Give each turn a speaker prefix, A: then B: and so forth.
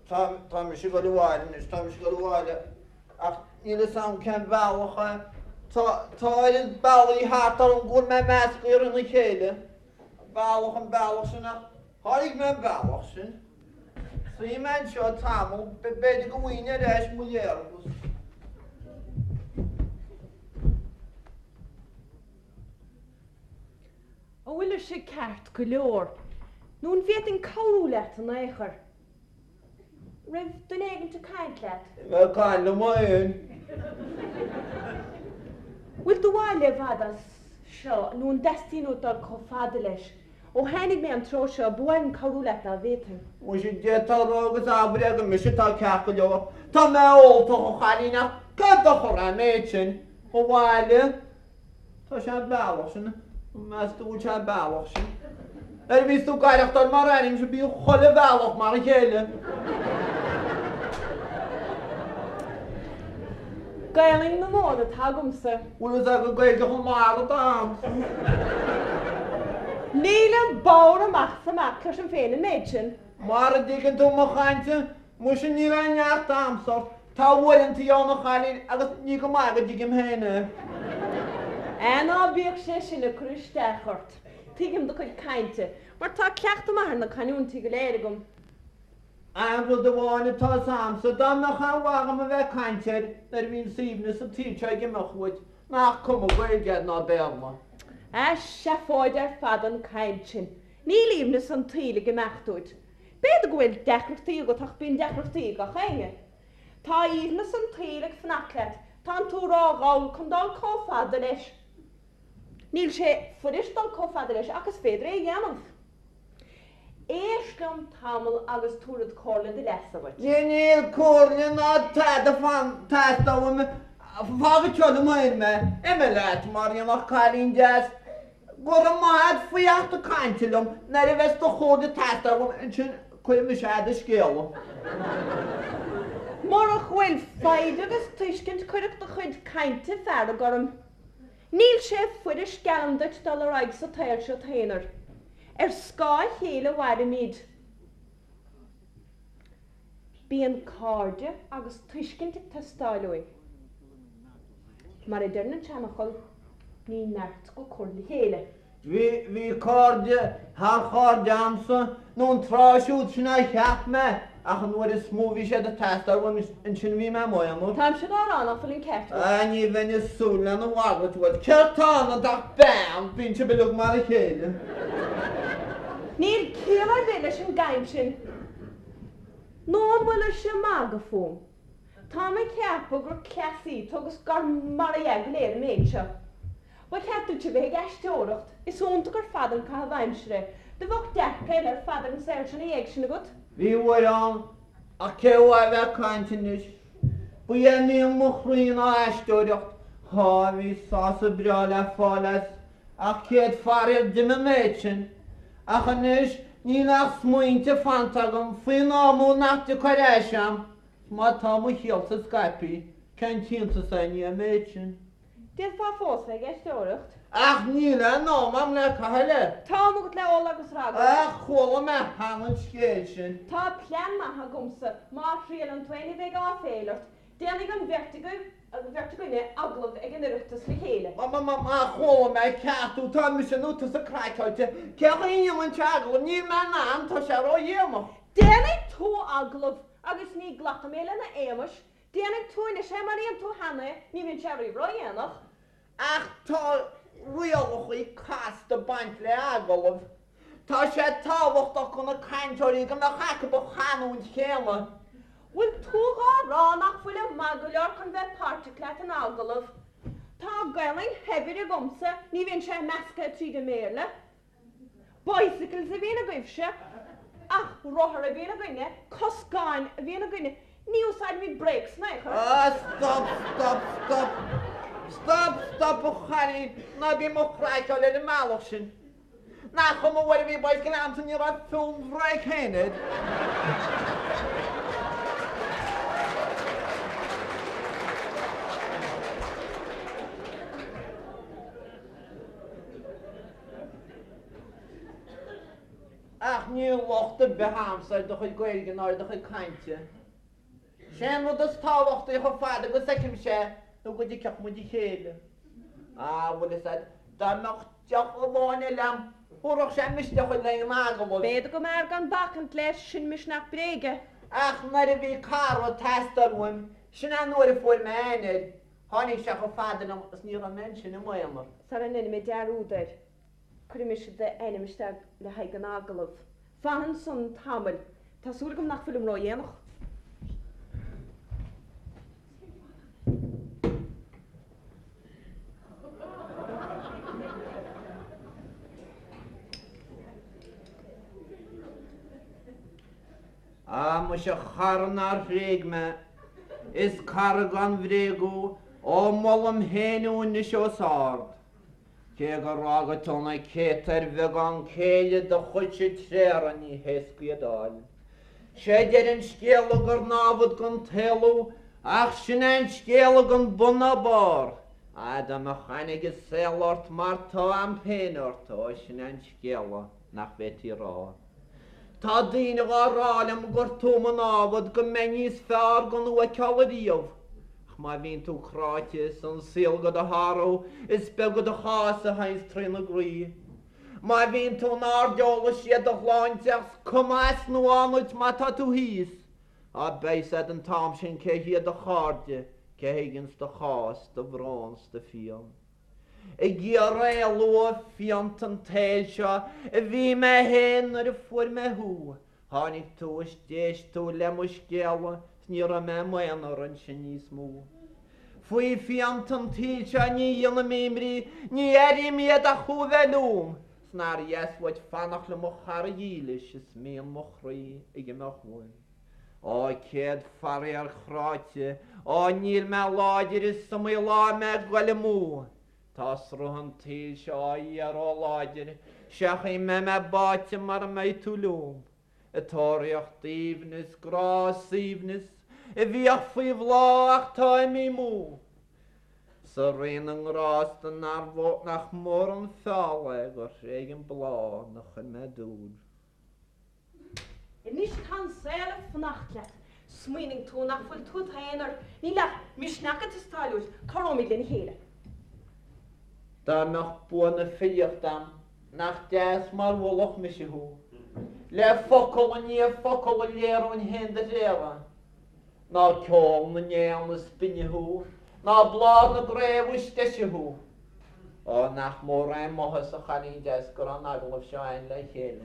A: Tá, tá mise ag dul abhaile anois, tá mise ag dul abhaile ach níl fhios a'm cén bealach é. Tá, tá oiread bealaí thart orm go bhfuil mé measctha thrína chéile. An bealach, an bealach sin ach sháraigh mé an bealach sin. Suífidh mé anseo tamall, b'fhéidir go bhfaighinn ar ais mo léargas.
B: An bhfuil mise ceart go leor? Nó an bhféadfainn cabhrú leat in aon chor? Raibh duine éigint ag caint leat?
A: Bhí mé ag caint liom féin.
B: Bhfuil do bhaile i bhfad as seo nó an dteastaíonn uait dul chomh fada leis? Ó tháinig mé an treo seo, ba mhaith liom cabhrú leat dá bhféadfainn.
A: Muise, d'fhéadfá a rá agus abair é gur mise atá ceart go leor. Tá mé óltach, a chailín, ach cén dochar é an méid sin? Mo bhaile? Tá sé an bealach sin, meas tú bhfuil sé an bealach sin? Nuair a bhíos tú ag aireachtáil mar airímse bíonn chuile bhealach mar a chéile.
B: Gaelainn na Mumhan atá agamsa.
A: Bhfuil fhios agat Gaeilge Chonamara atá agamsa.
B: Nílim bodhar amach is amach, cloisim féin an méid sin.
A: Mara dtuigeann tú mo chaint, muise níl aon neart a'msa ort. Tá uaireantaí ann a chailín agus ní go maith go dtuigim féin é.
B: Á ná bíodh sé sin ag cur isteach ort. Tuigim do chuid cainte, mar tá cleachtadh maith ar na canúintí go léir agam.
A: Aon rud amháin atá fhios a'msa, dá mbeadh aon mhaith agam a bheith ag caint air nuair a bhíonn aoibhneas an tsaoil seo ag imeacht uait, nach cuma Gaeilge agat ná Béarla.
B: Á, seafóid ar fad an chaint sin. Níl aoibhneas an tsaoil ag imeacht uait. B'fhéidir go bhfuil deacrachtaí agat ach bíonn deacrachtaí ag gach éinne. Tá aoibhneas an tsaoil ag fanacht leat, tánn tú ródhall chun dul chomh fada leis. Níl sé fuirist dul chomh fada leis ach is féidir é a dhéanamh. Éist liom tamall agus tabharfad comhairle de leasa dhuit.
A: Níl comhairle ná tada ag teastáil uaim, fág anseo liom féin mé, imigh leat mar aon cailín deas. Go raibh maith agat faoi theacht ag caint liom, nuair a bheas do chomhairle ag teastáil uaim ansin cuirfidh mise a'd an scéala.
B: Murach go bhfuil foighid agus tuiscint cuirfeadh do chuid cainte fearg orm. Níl sé fuirist geallaim duit dul ar aghaidh sa tsaol seo t-aonar. Ar scáth a chéile a mhairimid. Bíonn cairde agus tuiscint ag teastáil uainn. Mar a deireann an seanfhocal, ní neart go cur le chéile.
A: Bhí, bhí cairde thar chairde a'msa, nó an tráth siúd sin a cheap mé, ach an uair is mó a bhí siad ag teastáil uaim, ansin a bhí mé i m'aonar.
B: Táimse dhá rá nach bhfuil an ceart agat.
A: Ah, ní bheinn ag súil lena mhalairt uait. Céard tá ionat ach bean, bíonn sibh uilig mar a chéile.
B: Níl ciall ar bith leis an gcaint sin. Nó an bhfuil mise ag magadh fúm? Táim ag ceapadh gur cleasaí tú agus gur mar a dhea go léir an méid seo. Ba cheart duit a bheith ag aisteoireacht, is iontach ar fad an caitheamh aimsire é. Do bheadh dearcadh eile ar fad ar an saol seo ina dhiaidh sin agat.
A: Bhí uair ann, ach cé uaidh a bheith ag caint anois? Ba é mian mo chroí ná aisteoireacht. Á, bhí sásamh breá le fáil as, ach céad faraor d'imigh an méid sin. Ach anois níl ach smaointe fanta agam faoin am úd nach dtiocfaidh ar ais a'm, 's má tá mo shaolsa scaipthe, cén t-iontas é i ndiaidh an méid sin?
B: D'fhéadfá fós bheith ag aisteoireacht.
A: Ach níl aon am a'm le caitheamh leis.
B: Tá am agat le ól agus ragaireacht.
A: Ach chuala mé cheana an scéal sin.
B: Tá plean maith agamsa, má thriaileann tú é ní bheidh áiféil ort. Déanfaidh an bheirt agaibh, an bheirt againne, agallamh ag an Oireachtas le chéile.
A: Má, má, má, má chuala mé ceart thú, tá mise nó tusa craiceáilte. Cén chaoi a ndéanfainnse agallamh? Níl mé in ann, tá sé ródhéanach.
B: Déanfaidh tú agallamh agus ní ghlacfaidh mé lena éamais. Déanfaidh tú anois é mar a dhein tú cheana é, ní bhíonn sé riamh ródhéanach.
A: Ach tá rialacha casta ag baint le agallamh. Tá sé tábhachtach do na cainteoirí go mbeadh acu an chanúint chéanna.
B: Bhfuil tú dhá rá nach bhfuilim maith go leor chun bheith páirteach leat in agallamh? Tá Gaelainn shaibhir agamsa, ní bhíonn sé measctha tríd an mBéarla. Bicycles a bhíonn agaibhse, ach rothar a bhíonn againne, coscáin a bhíonn againne, ní úsáidimid brakes in aon chor.
A: Ah, stop, stop, stop. Stop, stop, a chailín, ná bí mo chraiceáil ar an mbealach sin. Nach cuma uair a bhí bicycle a'msa ní raibh fiú an bhréig féin air. Ach. níl locht ar bith a'msa ar do chuid Gaeilge ná ar do chuid cainte. Sé an rud is tábhachtaí chomh fada agus fheicimse é nó go dtuigfeadh muid a chéile. Ah, bhfuil fhios a'd, dá mbeadh deoch amháin eile a'm, thabharfadh sé misneach dhuit le haghaidh an agallaimh.
B: B'fhéidir go mb'fhearr gan bacaint leis, sin misneach bréige.
A: Ach nuair a bhí cara ag teastáil uaim, sin é an uair a fuair mé aithne air. Tháinig sé chomh fada liom is ní raibh mé ansin i m'aonar.
B: Sara ndéanfaidh mé dearúd air, cuirfidh mise d'ainm isteach le haghaidh an agallaimh. Fan ansan tamall. Tá súil agam nach bhfuilim ródhéanach.
A: Á, muise a chara nár thréig mé, is cara gan bhréag thú, ó molaim féin thú anois os ard. Cé gur fhága tú na céadta ar bheagán céille do chuidse tréada ní héasca iad a fháil. Sé deireadh an scéala gur námhad don tsaol thú ach sin é an scéal gan bun ná barr. Á dá mbeadh aithne ag an saol ort mar tá a'm féin ort, ó sin é an scéala nach bhféadfaí a rá. Tá daoine dhá rá liom gur tú mo námhad, go mbeinn níos fearr gan thú a fheiceáil ariamh. Ach má bhíonn tú cráite is an saol do do shárú, is beag do chás a théanns trína gcroí. Má bhíonn tú in airde ólfaidh siad do shláinte ach 's cuma as nó ann duit má tá tú thíos. Á beidh 'fhios a'd an t-am sin cé hiad do chairde, cé thuigeanns do chás, do bhrón 's do phian. Ag iarraidh éalú ó phianta an tsaoil seo a bhí mé féin nuair a fuair mé thú. Tháinig tú is d'éist tú le mo scéala 's ní raibh mé i m'aonar ansin níos mó. Faoi phianta an tsaoil seo ní dhéanaim imní, ní airím iad ach thú a bheith liom. 'S nár dheas uait fanacht liom a chara dhílis is mian mo chroí ag imeacht uaim. Á céad faraor chráite, á níl mé láidir is iomaí lá mé ag goil amú. Tá sruth an tsaoil seo á iarraidh láidir, sé an chaoi a mbeidh mé báite mara mbeidh tú liom. Ag tóraíocht aoibhneas, grá, suaimhneas, a bhíodh faoi bhláth ach tá imithe amú. Sa Rí na nGrásta nach mór an feall é gur thréig an bláth 'na chuir mé dúil.
B: Anois tá an saol ag fanacht leat. Smaoiníonn tú nach bhfuil tú i d'aonar. Níl ach misneach ag teastáil uait. Cabhróimid lena chéile.
A: Dá mbeadh bua na filíochta a'm, nach deas mar mholfadh mise thú. Le focal i ndiaidh focal a léireoinn féin do thréada. Ná ceol na n-éan is binne thú, ná bláth na gcraobh is deise thú. Ó, nach mór é m'áthas, a chailín deas, go raibh an agallamh seo a'inn le chéile.